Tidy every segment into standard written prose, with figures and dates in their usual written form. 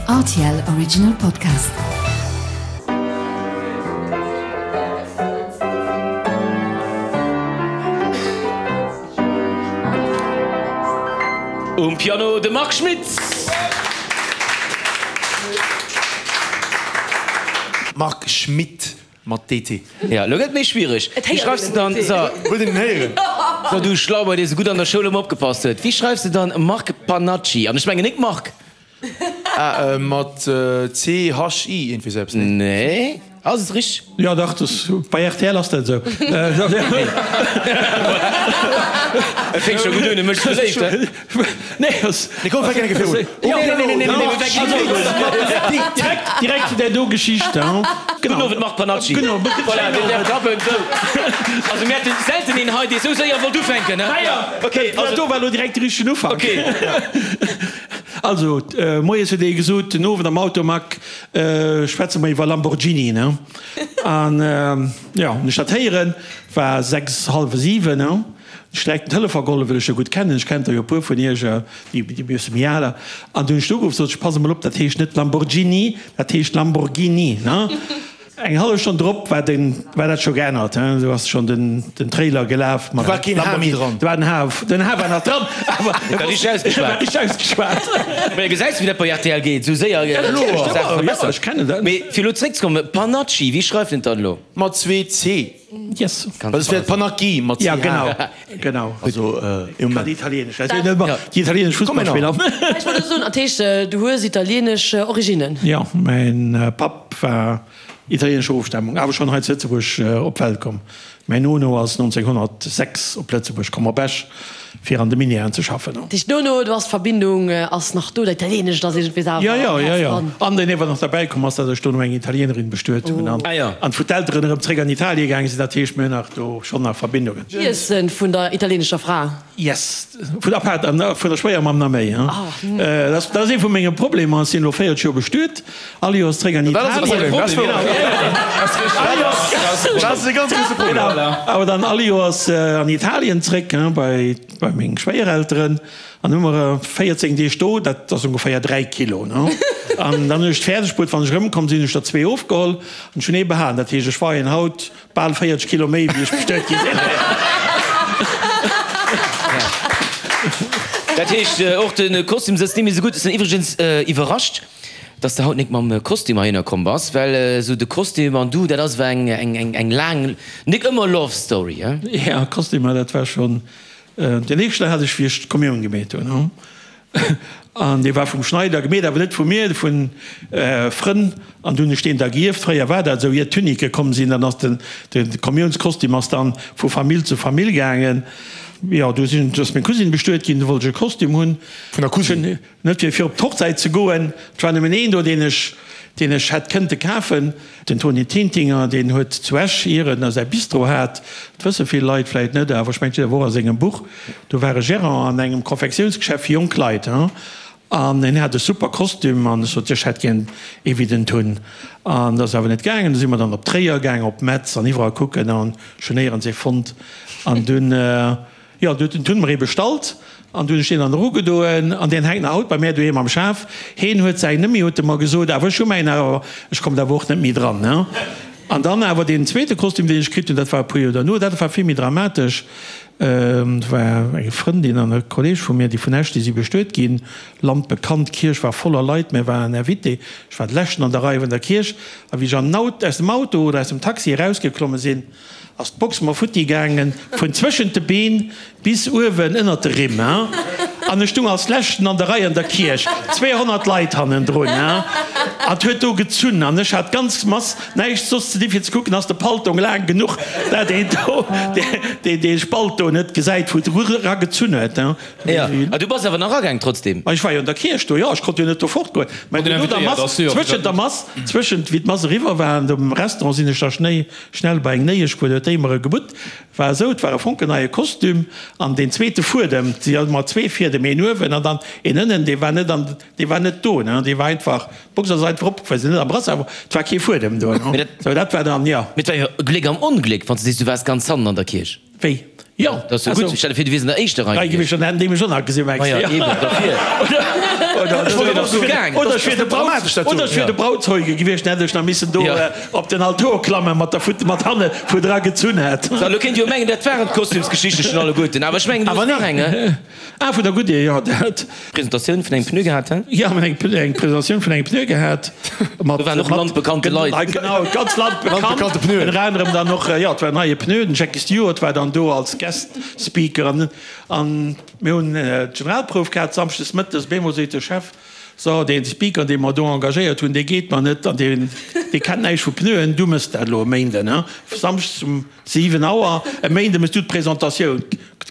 Rtl Original Podcast. Um Piano de Marc Schmitz. Marc Schmitt. Mat DT. Ja, lo gëtt et méi schwiereg. Wéi schreifs de dann, so. Wëllt een en héieren? So, du Schlauber, dee sou gutt an der Schoul ëmmer opgepasst huet, wéi schreifs de dann Marc Panacci? An ech mengen nik Marc. Ah, mat CHI, iergendwéi sou eppes, nee? Nee. Ass et richteg? Jo, dach, das, bei rtl ass dat esou. Et fänkt scho gutt un, e mécht sech beléift, he? Nee, ass. Nee, komm, fänk eng Kéier virun. Jo, nee, nee, nee, nee, nee, direkt, direkt, direkt zu där do Geschicht, he? Gudden Owend, Marc Panacci. Gudden Owend. Voilà, deen däerf klappen. Sou. Also mir haten selten een hei, dee sou séier wollt ufänken, he? Okay, also. Dat do war elo direkt de richtegen Ufank. Okay. Also, moies huet ee gesot, den Owend am Auto, Marc, Schwätze mer iwwer Lamborghini, ne? An jo, hunn ech dat héieren, war 6, hallwe 7, ne? Hunn ech direkt den Telefon geholl, well ech jo gutt kennen, ech kennt der jo e puer vun iech, déi e bësse méi al. An du hunn ech do ugeruff, sot ech, pass emol op, dat heescht net Lamborghini, dat heescht Lamborghini, ne? Eng hallef Stonn drop war den, war dat scho geännert, hein, do ass schonn den, den Trailer gelaf mat. Do war keen H méi dran. Do war den H, den H war nach dran, awer e war richteg ausgeschwat. War richteg ausgeschwat. Mä gesäis wéi dat bei rtl geet, esou séier Saache verbessert. Ech kennen dat. Mee fir elo zréckzekommen, Panacci, wéi schreift een dat elo? Mat zwee C. Yes. Well et wär Panacchi mat Ja, CH. genau, genau. Also, e Moment. Italienesch, also net déi italienesch Fussballspiller. Ech wollt elo soen, dat heescht, du hues italienesch Originnen? Jo, mäin Papp war italienescher Ofstamung, awer schonn hei zu Lëtzebuerg op d'Welt komm. Mäin Nono ass 1906 op Lëtzebuerg komm, op Esch, fir an de Minièren ze schaffen. Dat heescht, Nono, du ass d'Verbindung ass nach do, dat Italienescht ass iergendwéi awer Jo, jo, am jo, Häerz jo. dran. An deen ewer nach derbäi komm ass, datt ech dono eng Italienerin bestuet hunn an an wou d'Elteren erëm zréck an Italie gaange sinn. Dat heescht, mir hunn nach do schonn nach Verbindungen. Iessen vun der italienescher Fra? Yes, vun der Pat an vun der Schwéiermamm nach méi. Dat ass ee vu menge Problemer. Ech sinn elo 40 Joer bestuet. All Joers zréck an Dat ass e Italien. Problem, dat ass wouer. Dat ass e ganz grousse Problem. Awer dann all Joers an Italien zréck, bei bei meng Schwéierelteren. An hu mer 14 Deeg do, dat ass ongeféier 3 Kilo, ne. An dann hunn ech et fäerdeg bruet, wann ech erëmkomm sinn, hunn ech der zwee ofgeholl an ech hunn ee behalen. Dat heescht, ech weien haut Bal 40 Kilo méi wéi ech bestuet gi sinn. Dat heescht och de Kostüm sëtzt net méi esou gutt. Ech sinn iwwregens iwwerrascht, dass de haut nik mam Kostüm heihinner komm bass, well esou de Kostüm an du, dat ass ewell eng eng eng laang, nik ëmmer Love Story, he? Ja, Kostümer, dat war schonn den éischten hat ech wéi ech d'Kommioun gemeet hunn. An dee war vum Schneider gemeet, awer net vu mir, vu Frënn. An du hunn ech deen da gierft. Fréier war dat esou, ier d'Tunique komm sinn, dann ass den, de Kommiounskostüm ass dann vu Famill zu Famill gaangen. Jo, du sinn, du ass meng Cousine bestuet ginn, du wollt ech e Kostüm hunn. Vun der Cousine? Net fir, fir op d'Hochzäit ze goen. Et war nëmmen een do, deen ech, deen ech hätt kënnte kafen. Den Tony Tintinger, deen huet zu Esch, ier en säi Bistro hat, dat wësse vill Leit vläit net, awer ech mengen, et steet awer och a sengem Buch, do war e Gérant an engem Konfektiounsgeschäft fir jonk Leit, an en hat e super Kostüm, an ech sot, ech hätt gär ee wéi den Tun. An dat ass awer net gaangen. Du si mer dann op Tréier gaangen, op Metz an iwwerall kucken, an ech hunn néierens ee fonnt. An dunn. Jo, du huet den Tun mer ee bestallt an du hunn ech deen dann erugedoen an deen hänkt nach haut bei mär doheem am Schaf. Heen huet säin net méi, huet e mer gesot, awer ech hu mäin nach, awer ech komm da awer och net méi dran, ne. An dann awer deen zweete Kostüm, deen ech kritt hunn, dat war e puer Joer derno, dat war vill méi dramatesch. Dat war eng Frëndin an e Kolleeg vu mir, déi vun Esch, déi si bestuet ginn, landbekannt. D'Kierch war voller Leit, mär waren Invité, ech war de leschten an der Rei vun der Kierch a wéi ech an den Aut, aus dem Auto oder aus dem Taxi erausgeklomme sinn, Ass d'Box mer futti gaangen, vun zwëschent de Been bis uewen ënnert de Rimm, hein. An ech stung als leschten an der Rei an der Kierch, 200 Leit hannendrun, hein. An 't huet do gezunn an ech hat d'ganz Mass näischt soss ze di fir ze kucken, ass de Paltong laang genuch, dat een do dee Spalt do net gesäit, wou et era gezunn huet, hein. Jo, a du bass awer nach agaang trotzdem? Ma ech war jo an der Kierch do, jo, ech konnt jo net do fortgoen. Mä no der Mass, zwëschent der Mass, zwëschent wéi d'Mass eriwwer war an dem Restaurant sinn ech da schnéi Schnell bei eng Néiesch gefuer, huet déi mer e gebutt. War esou, et war e fonkelneie Kostüm an deen zweete Fuedem, et si jo ëmmer zwee Fiedem, een uewen an dann een ënnen, dee war net an, dee war net do, ne, dee war einfach, d'Box ass einfach opgefuer, se net am Brassard, awer et war kee Fuedem do, ne. Sou, dat war dann, jo. Mee et war jo Gléck am Ongléck, wann s de sees, du waars ganz hannen an der Kierch. Wéi? Jo, Dat ass jo gutt. Stell der vir, du wiers an der éischter Rei gewiescht. Dann hätten déi mech och nach gesinn, mengs du? Maja, eben, dofir. Oder ech wier de Braut, oder ech wier de Brautzeuge gewiescht, dann hätt ech nach missen do op den Altor klammen mat der Futt, mat hanne vu dra gezunn hätt. So, elo kéint Dir jo mengen, dat waren d'Kostümsgeschichte schonn alleguerten, awer ech mengen, du hues nach eng, he? Ah, vun der Goodyear, jo, dat. Presentatioun vun engem Pneu gehat, he? Jo, mir hunn eng Presentatioun vun engem Pneu gehat. Mat, Do waren och landbekannte Leit. Genau, ganz landbekannt. Landbekannte Pneuen. Ënner anerem dann och, jo, et war en neie Pneu, den Jackie Stewart war dann do als Guest Speaker an, an mir hunn d'Generalprouf gehat samschdes mëttes. Op eemol seet de Chef, So, dee Speaker, dee mer do engagéiert hunn, dee geet mer net an dee, dee kennt näischt vu Pneuen, du mëss dat elo e Méinden, he? Samschdes um 7 Auer, e Méinde mëss du d'Presentatioun.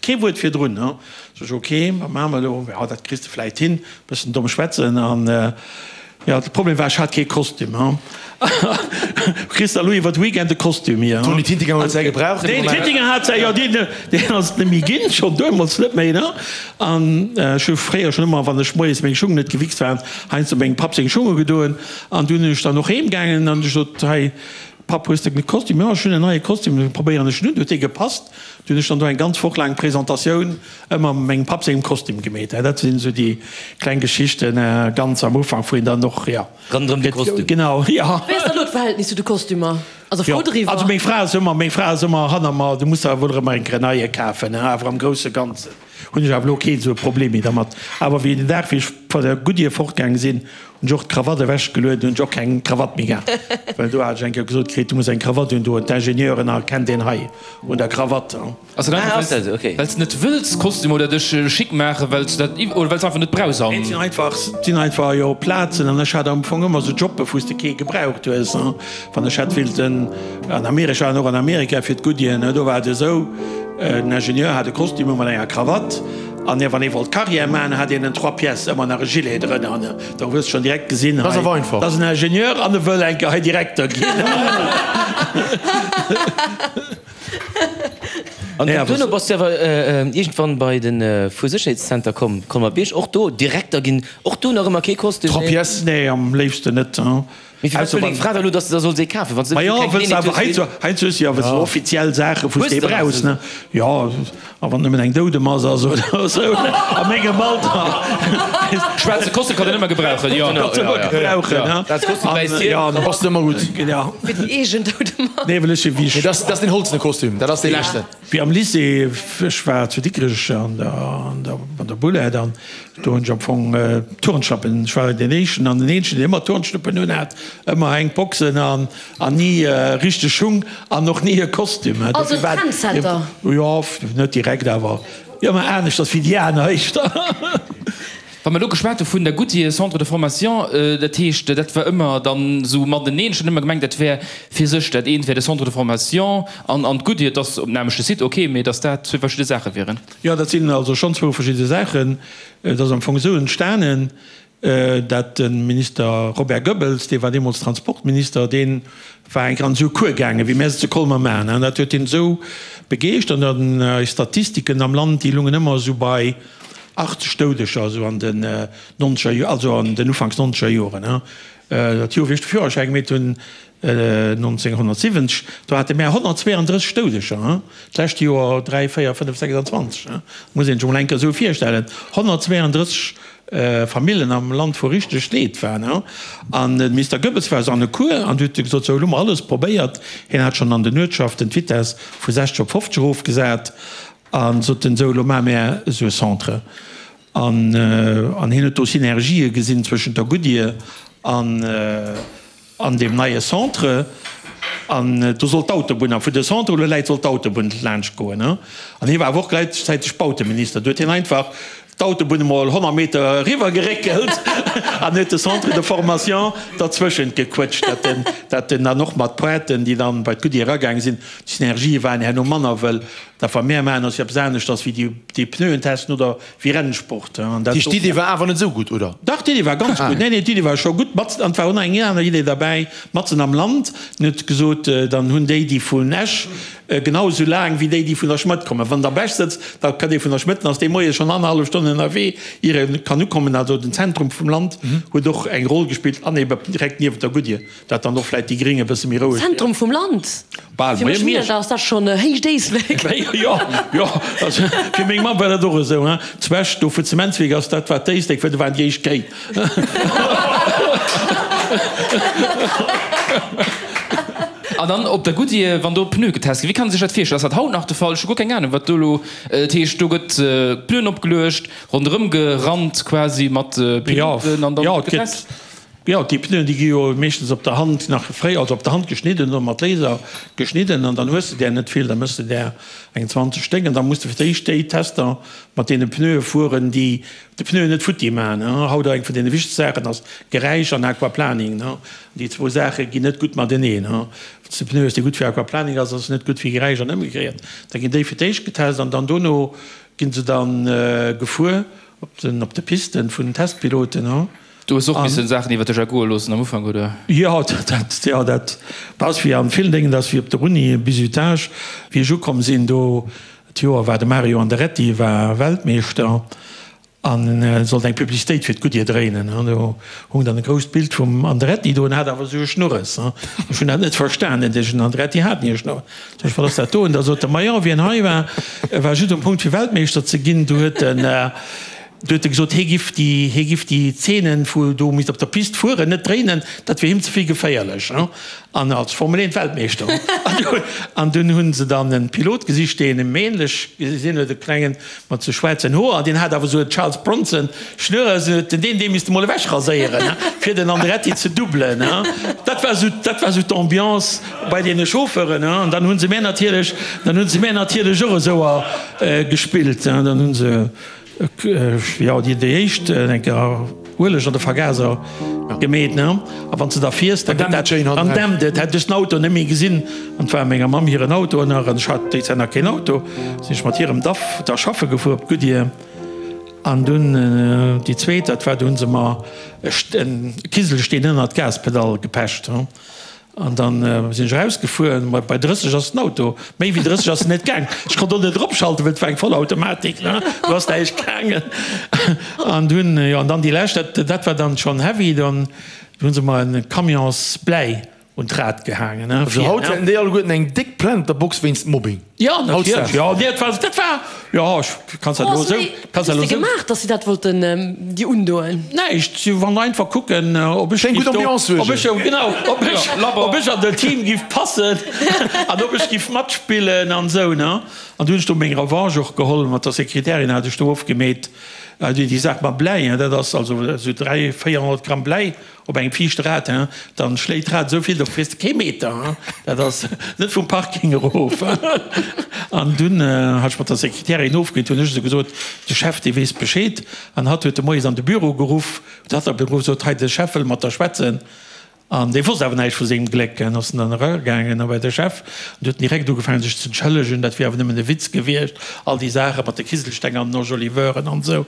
Kee Wuert virdrun, he? Sot ech, ok, wat maache mer elo? Jo, dat kriss de vläit hin, bëssen domm schwätzen an, jo, de Problem war, ech hat kee Kostüm, he? Kriss der elo iwwer de Weekend e Kostüm hier, he? Tony Tintinger huet säi gebraucht. Den Tintinger hat säi, jo, deen, deen ass et net méi ginn, schonn deemools net méi, ne? An ech hu fréier schonn ëmmer, wann ech moies meng Schung net gewichst waren, heiansdo mengem Papp seng Schunge gedoen. An dunn hunn ech dann och heem gaangen an ech sot, hei Papp, hues de e Kostüm? Jo, ech hunn en neie Kostüm, da probéieren ech en un. Huet dee gepasst. Du hunn ech dann do eng ganz Woch laang Presentatioun ëmmer mat mengem Papp sengem Kostüm gemeet. Dat sinn esou déi kleng Geschichten ganz am Ufank, wou een dann och, jo. Ronderëm de Kostüm. Genau, jo. Wéi ass da elo d'Verhältnis zu de Kostümer? Also frou driwwer? Also meng Fra ass ëmmer, meng Fra ass ëmmer hanner mer, du muss der wuel erëm eng Grenaille kafen, awer am grousse Ganzen hunn ech awer elo keen esou e Problem méi dermat. Awer wéi den Dag wéi ech vun der Goodyear fortgaange sinn, hunn ech och d'Krawatt ewech gelueden, hunn ech och keng Krawatt méi gehat, well do hat ech eng Kéier gesot kritt, du muss eng Krawatt un doen, d'Ingenieuren erkennt een hei un der Krawatt. Ass dat einfach well s de net wëlls Kostüm oder dech schick maachen, well s de dat oder well s einfach net brauchs an. Et sinn einfach, et sinn einfach jo Plazen an ech hat am Fong ëmmer sou Jobbe wou s de kee gebraucht hues. Wann ech hätt willten an Amerika, ech war och an Amerika fir d'Goodyear, ne, do war et esou, den Ingenieur hat e Kostüm u mat enger Krawatt an wann ee wollt Carrière maachen, hat een en trois pièces, ëmmer nach e Gilet drënner, ne, donc hues de schonn direkt gesinn, hei, dat ass en Ingenieur an e wëll eng Kéier hei Direkter ginn. An duerno bass du awer iergendwann bei de Fuersécherheetszenter komm, Colmer-Bierg, och do Direkter ginn, och do nach ëmmer kee Kostüm? Trois pièces? Nee, am léifsten net. Mee firwat wëll deng Fra da elo, dass de der solls ee kafen, wann se Ma jo, wëlls de awer heiansdo, heiansdo hues de jo awer esou offiziell Saachen, wou s de ee brauchs, ne? Jo, a wann nëmmen eng Doudemass ass oder esou, a mengem Alter. Schwaarze Kostüm kann een ëmmer gebrauchen, jo. Kanns ëmmer gebrauchen, ne? Schwaarze Kostüm, wäisst Hiem. Ja, Passt ëmmer gutt. Ja. Fir déi eegen Doudemass. Nee, well ech wéi ech. Nee, dat ass deen holzene Kostüm, dat ass dee leschten. Wéi am Lycée, ech war zu Dikrech an der, an der, an der Boulette an do hunn ech am Fong Turnschlappen, ech war deen éischten an den eenzegen, deen ëmmer Turnschluppen un hat, ëmmer enk Boxen an, an ni richteg Schung an och ni e Kostüm. Also Trendsetter? Jo, net direkt, awer ëmmer aneschters wéi déi aner éischter. Wa mer elo geschwat hu vun der Goodyear Centre de formation, dat heescht, dat war ëmmer dann esou mateneen. Ech hunn ëmmer gemengt, dat wär fir sech, dat eent wär de Centre de formation an an d'Goodyear, et ass op nämmlechte Site, ok, mee datt dat zwee verschidde Saache wieren. Jo, dat sinn also schonn zwou verschidde Saachen. Et ass am Fong esou entstanen, dat de Minister Robert Goebbels, dee war deemools Transportminister, dee war eng Kéier an esou e Cours gaangen, wéi mär se zu Colmer maachen. An dat huet hien esou begeeschtert. An eis Statistiken am Land, déi lungen ëmmer esou bei 80 Doudeger, esou an den nonzeger, also an den ufanks nonzeger Joren. Dat Joer, wéi ech de Führerschäi gemeet hunn, 1970, do hate mär 132 Doudeger, d'lescht Joer 3, 4, 5, 26. Muss een sech emol eng Kéier esou virstellen, 132 Famillen am Land, wou richteg Leed war. An de Mister Goebbels war esou an e Cours an huet gesot, sou, elo hu mer alles probéiert. Hien hat schonn an den Uertschaften d'Vitess vu 60 op 50 erofgesat a sot en, sou, elo maache mär esou e Centre. An hien huet do Synergië gesinn zwëschent der Goodyear an an deem neie Centre. An do soll d'Autobunn, a vu de Centre elo läit, soll d'Autobunn laanscht goen. An hie war awer och gläichzäiteg Bauteminister. Do huet hien einfach d'Autobunn emol 100 Meter eriwwer geréckelt an huet de Centre de formation derzwëschent gequëtscht, dat en, dat en dann och mat Pointen, déi dann bei d'Goodyear eragaange sinn, d'Synergië waren herno manner, wëll dat wat mär maachen ass jo eppes aneschters wéi déi, déi Pneuen testen oder Wéi Rennsport. An dat Heescht, d'Idee war awer net esou gutt, oder? Dach, d'Idee war ganz gutt. Nee, nee, d'Idee war scho gutt. Matzen, an et war och nach eng aner Idee derbäi, matzen am Land. En huet gesot, dann hunn déi, déi vun Esch Genau esou laang wéi déi, déi vun der Schmëtt kommen. Wann der op Esch sëtzt, da kënnt ee vun der Schmëtt, dann ass dee Moies schonn annerhallef Stonn ënnerwee, ier e kann ukommen. Also den Zentrum vum Land huet och eng Roll gespillt an ebe direkt niewent der Goodyear, dat dann och vläit déi Gréng e bësse méi roueg. Zentrum vum Land? Bal, Fir mech Miersch ass dat schonn héicht Éislek. Jo, jo, also fir meng Mamm war dat och esou, hein. Zu Esch, do wou d'Zementswierk ass, dat war d'Éislek, well do waren déi éischt Kéi. An dann op der Goodyear, wann do Pneue getest ginn, wéi kann ee sech dat virstellen? Ass dat haut nach de Fall? Ech hu guer keng Anung, wat do elo, dat heescht, do gëtt Pneuen opgeluecht, ronderëm gerannt quasi mat Piloten an dann gëtt getest? Jo, déi Pneuen, déi gi jo meeschtens op der Hand nach fréi, also op der Hand geschnidden oder mat Laser geschnidden an dann hues de där net vill, da méchs de där eng 20 Stéck an da muss de fir d'éischt déi Tester mat deene Pneue fueren, déi de Pneuen net futti maachen. Haut eng vun deene wichtegste Saachen ass Geräisch an Aquaplaning. Déi zwou Saache ginn net gutt mateneen. Wann s de Pneu hues, dee gutt fir Aquaplaning ass, ass en net gutt fir Geräisch an ëmgekéiert. Da ginn déi fir d'éischt getest an dann dono gi se da gefuer op de Pisten vun den Testpiloten. Du hues och missen Saachen iwwer dech ergoe loossen am Ufank, oder? Jo, dat, jo, dat ass wéi an villen Déngen, dat ass wéi op der Uni, Bizutage. Wéi ech ukomm sinn do, d'Joer war de Mario Andretti war Weltmeeschter An e sollt eng Publicitéit fir d'Goodyear dréinen. An do hung dann e grousst Bild vum Andretti do. En hat awer esou e Schnurres. Ech hunn dat net verstanen, deen Andretti hat ni e Schnurres. Sot ech, wat ass dat do? An da sot e, majo, wien hei war, war just um Punkt fir Weltmeeschter ze ginn. Du huet en, du huet e gesot, hie giff déi, hie giff déi Zeenen, wou do misst op der Pist fueren, net dréinen, dat wier him ze vill geféierlech. An als Formel 1 Weltmeeschter. An dunn hunn se dann en Pilot gesicht, deen em ähnlech gesinn huet, e klengen mat sou schwaarzen Hoer, an deen hat awer sou e Charles Bronson Schnurres, an huet den deen, dee misste mol ewech raséieren, fir den Andretti ze doublen. Dat war sou, dat war sou d'Ambiance bei deene Chauffeuren. An dann hunn se mär natierlech, dann hunn se mär natierlech och esou gespillt. Dann hunn se. Jo, déi déi éischt eng Kéier Ueleg an de Vergaser gemeet, ne? A wann s de da fiers, da gëtt dat, dann dämpt et. Hätt ech den Auto net méi gesinn, an et war menger Mamm hiren Auto nach, an ech hat déi Zäit nach keen Auto, sinn ech mat hirem Daf da schaffe gefuer op d'Goodyear. An dunn déi zweet, dat war, do hu se mer e Kiselsteen ënnert d'Gaspedall gepecht. An dann sinn ech erausgefuer, ma bei 30 ass den Auto, méi wéi 30 ass en net gaang. Ech konnt och net eropschalten, well et war eng Vollautomatik, ne, do ass näischt gaangen. An dunn, jo, an dann déi lescht, dat, dat war dann schonn heavy, dann hu se mer e Camions Bläi un d'Rad gehaangen, ne, Also haut hätten déi alleguerten eng déck Plainte der Box wéinst Mobbing. Jo, natierlech, jo, nee, dat war, dat war, jo, ech kanns dat elo esou, kanns dat elo esou. Wat hues de gemaach, dass si dat wollten dir undoen? Näischt, si wollen einfach kucken, ob ech Fir eng gutt Ambiance suergen. Ob ech, genau, ob ech, ob ech an den Team giff passen an ob ech giff matspillen an esou, ne. An du hunn ech do meng Revanche och geholl, mat der Sekretärin hat ech do ofgemeet, déi Saach mam Bläi, dat ass also esou 300, 400 Gramm Bläi Op engem viischte Rad, hein, dann schléit d'Rad esou vill, do fiers de kee Meter, hein, dat ass net vum Parking erof. An dunn hat ech mat der Sekretärin ofgeet, hunn ech esou gesot, de Chef, dee weess Bescheed. An hatt huet de moies an de Büro geruff, huet hatt op de Büro gesot, hei, de Chef wëll mat der schwätzen. An dee wosst awer näischt vu sengem Gléck. An ass en dann eragaangen a bei de Chef, an du huet en direkt ugefaangen sech ze entschëllegen, dat wier awer nëmmen e Witz gewiescht, all déi Saache mat de Kiselsteng an den Enjoliveuren an esou.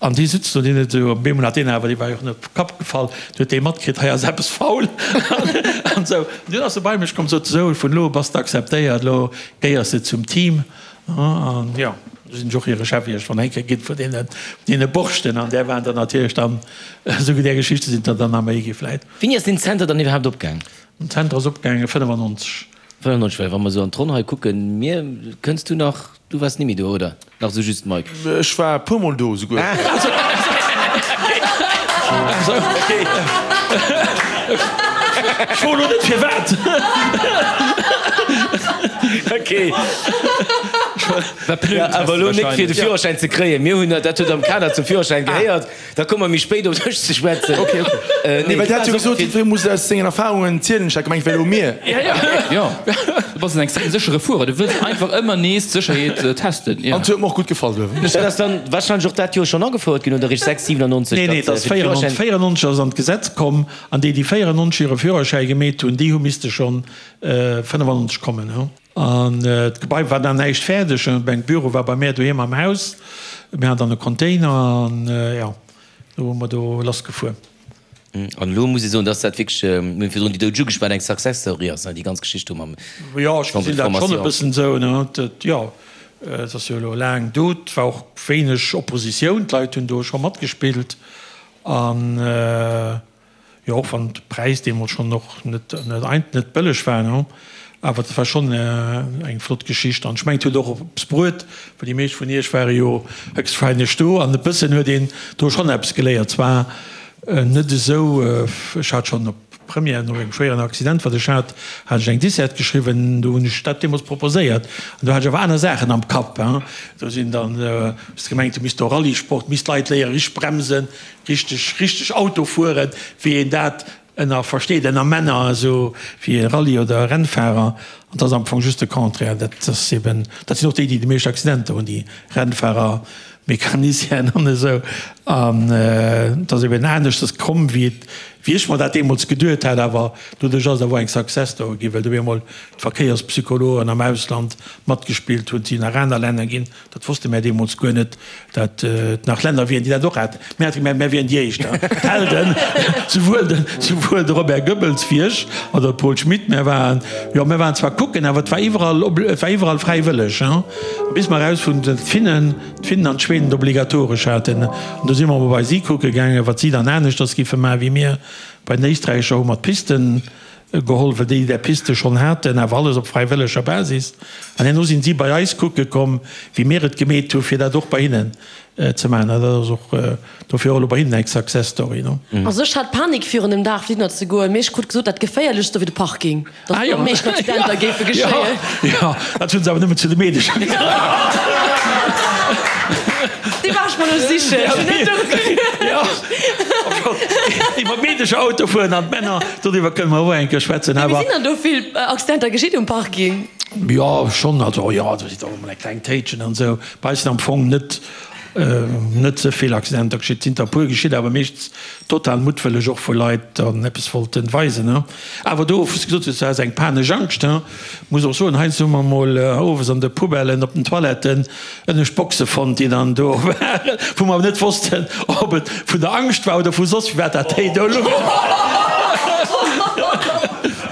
An dee sutz do, deen huet esou, op eemol hat deen awer, dee war jo och net op de Kapp gefall, du huet dee matkritt, hei ass eppes faul an esou. An dunn ass e bei mech komm, sot esou, vun elo u bass de akzeptéiert, elo gehéiers de zum Team. An jo, du sinn ech och hire Chef iergendwann eng Kéier ginn vun deene, deene Borschten. An där waren der natierlech dann, esou där Geschichte sinn der dann nach méi gi vläit. Wéini ass deen Zenter dann iwwerhaapt opgaang? Den Zenter ass opgaange 95. 95, well wa mer esou an d'Ronn hei kucken, mir, kënns du nach, du waars nimmi do, oder? Nach esou just, Mike? Ech war e puer mol do esouguer. Ech froen elo net firwat. Okay. Awer elo nik fir de Führerschäin ze kréien. Mir hunn, dat huet am Kader zum Führerschäin gehéiert. Da komme mer méi spéit op dech ze schwätzen. Okay, okay. Nee, well dir hat jo gesot, jiddweree muss aus sengen Erfahrungen zielen. Ech hat gemengt, et wär elo mir. Jo, du bass en extrem séchere Fuerer. Du wëlls einfach ëmmer nees d'Sécherheet testen. An et huet mer och gutt gefall duerfir. Dat ass dann warscheinlech och dat Joer schonn agefouert ginn, oder eréischt 6, 97? Nee, nee, et ass 94 ass an d'Gesetz komm. An déi, déi 94 hire Führerschäi gemeet hunn, déi hu misste schonn 95 kommen. An d'Gebai war dann näischt fäerdeg. Mäin Büro war bei mär doheem am Haus. Mir haten dann e Container an jo, do hu mer do lass gefuer. An elo muss ee soen, dass dat wierklech, mir hunn virdrun déi Doudeg ugeschwat, eng Success Story ass, déi ganz Geschicht do mam Jo, ech Centre gesinn de dat schonn e formation. bëssen esou, ne. Dat, jo, et ass jo elo laang do. Et war och wéineg Oppositioun, d'Leit hunn do scho matgespillt. An, jo, och wann de Präis deemools schonn och net, net ein, net bëlleg war, ne. Awer dat war schonn eng flott Geschicht. An ech mengen, et huet och eppes bruet, well déi meescht vun iech ware jo héchstwahrscheinlech do. An e bëssen huet een do schonn eppes geléiert. Zwar Net esou, ech hat schonn op Première, no engem schwéieren Accident, wat ech hat, hat ech eng Dissert geschriwwen, do hunn ech dat deemools proposéiert an do hat ech awer aner Saachen am Kapp. Do sinn dann, hues de gemengt, du misst do Rallyesport, misst d'Leit léieren, richteg bremsen, richteg, richteg Auto fueren, wéi een dat ënner versteet, ënner Männer, esou wéi e Rallye oder e Rennfahrer. An dat ass am Fong just de Contraire. Dat ass eben, dat sinn och déi, déi déi meescht Accidenter hunn, déi Rennfahrer. Mecanicien an esou, an et ass eben aneschters komm, wéi et, wéi ech mer dat deemools geduet hat, awer doduerch ass et awer och eng Success Story ginn, well do op eemol d'Verkéierspsychologen am Ausland matgespillt hunn, et sinn nach aner Länner ginn, dat wosste mär deemools guer net, dat et nach Länner wieren, déi dat och haten. Mär hate gemengt, mär wieren déi éischt, d'Helden, souwuel de, souwuel de Robert Goebbels wéi ech, oder de Paul Schmit, mär waren, jo, mär waren zwar kucken, awer et war iwwerall, et war iwwerall fräiwëlleg, bis mer erausfonnt hunn, datt d'Finnen, d'Finnen an d'Schweden et obligatoresch haten. An do si mer emol bei si kucke gaangen, wat si dann aneschters giffe maachen wéi mir. Bei den Éisträicher hu mer d'Pisten geholl, well déi där Piste schonn haten, awer alles op fräiwëlleger Basis. An herno sinn si bei eis kucke komm, wéi mir et gemeet hu fir dat och bei hinnen ze maachen. An dat ass och dofir och elo bei hinnen eng Success Story. Also ech hat Panik virun dem Dag fir hinner ze goen, mee ech krut gesot, dat geféierlechst do wier de Parking. Dass do am meeschten Accidenter géife geschéien. Jo, dat hunn se awer nëmmen zu de Meedecher gesot. Déi war ech mer elo sichen. Ech hunn net doru geduecht. Iwwer Meedecher Auto fueren an d'Männer, doriwwer kënne mer och eng Kéier schwätzen. Mee sinn dann do vill Accidenter geschitt um Parking? Jo, schonn. Also, jo, do sinn och emol eng kleng Téitschen an esou. Bei eis sinn am Fong net Net ze vill Accidenter geschitt, sinn der e puer geschitt, awer meeschtens total muttwëlleg, och wou Leit dann eppes wollten weisen. Awer do, wou s de gesot hues, du has eng panesch Angscht, muss och soen, heiansdo hu mer mol owes an de Poubellen op den Toiletten ënnescht Boxe fonnt, déi dann do waren, wou mer awer net wossten, ob et vun der Angscht war oder vu soss firwat dat Déi do louch.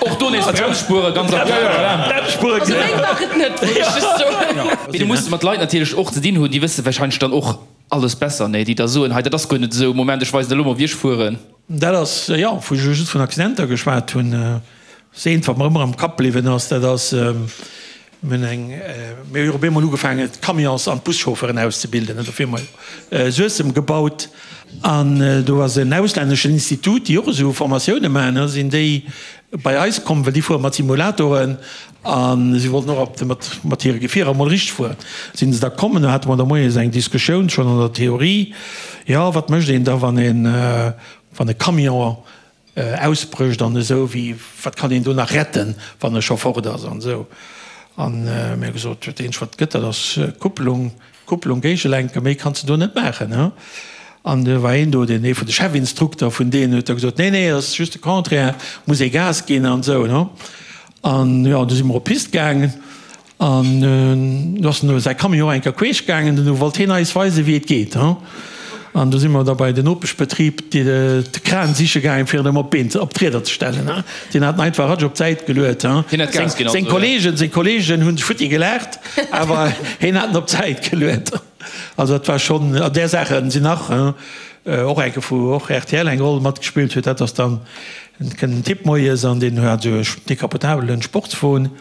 Och do nees Bremsspuere, ganz aktuell, voilà. Bremsspuere, Also meng war et net, wollt ech just soen. Mee du muss mat Leit natierlech och ze dinn hunn, déi wësse warscheinlech dann och alles besser, nee, déi da soen, hei dat ass guer net esou, Moment, ech weisen der elo mol wéi ech fueren. Dat ass, jo, wou ech elo just vun Accidenter geschwat hunn, ass eent, wat mer ëmmer am Kapp bliwwen ass, dat ass, mir hunn eng, mir hu jo op eemol ugefaangen, d'Camions an d'Buschaufferen auszebilden, an dofir hu mer Suessem gebaut. An do ass en auslänneschen Institut, déi och esou Formatioune maachen, da sinn déi bei eis komm, well déi fuere mat Simulatoren a si wollten och op mat mat hire Gefierer emol richteg fueren. Sinn se da komm an do hate mer da moies eng Diskussioun schonn an der Theorie, jo wat mécht een da wann een wann e Camion ausbrécht an esou, wéi wat kann een do nach retten, wann e scho fort ass an esou. An mir hu gesot, dat eenzegt wat gëtt, dat ass Kupplung, Kupplung géigelenken, méi kanns de do net maachen. An do war een do, deen ee vun de Chefinstrukter vun deenen, huet da gesot, nee, nee, dat ass just de Contraire, muss ee Gas ginn an esou. An jo, du si mer op d'Pist gaangen An du ass en säi Camion eng Kéier queesch gaangen, du wollt hien eis weisen, wéi et geet. An du si mer da bei den Nopeschbetrib de Kran siche gaangen, fir en ëm op d'Been, op d'Rieder ze stellen. Deen hat en einfach ratsch op d'Säit geluet. Seng Kollegen, seng Kollegen hunn futti gelaacht, awer hien hat en op d'Säit geluet. Also dat war schonn, an där Saache sinn nach och eng Kéier, wou och rtl eng Roll matgespillt huet, dat ass dann, kënnt en Typ moies an deen hat esou e decapotabelen Sportswon.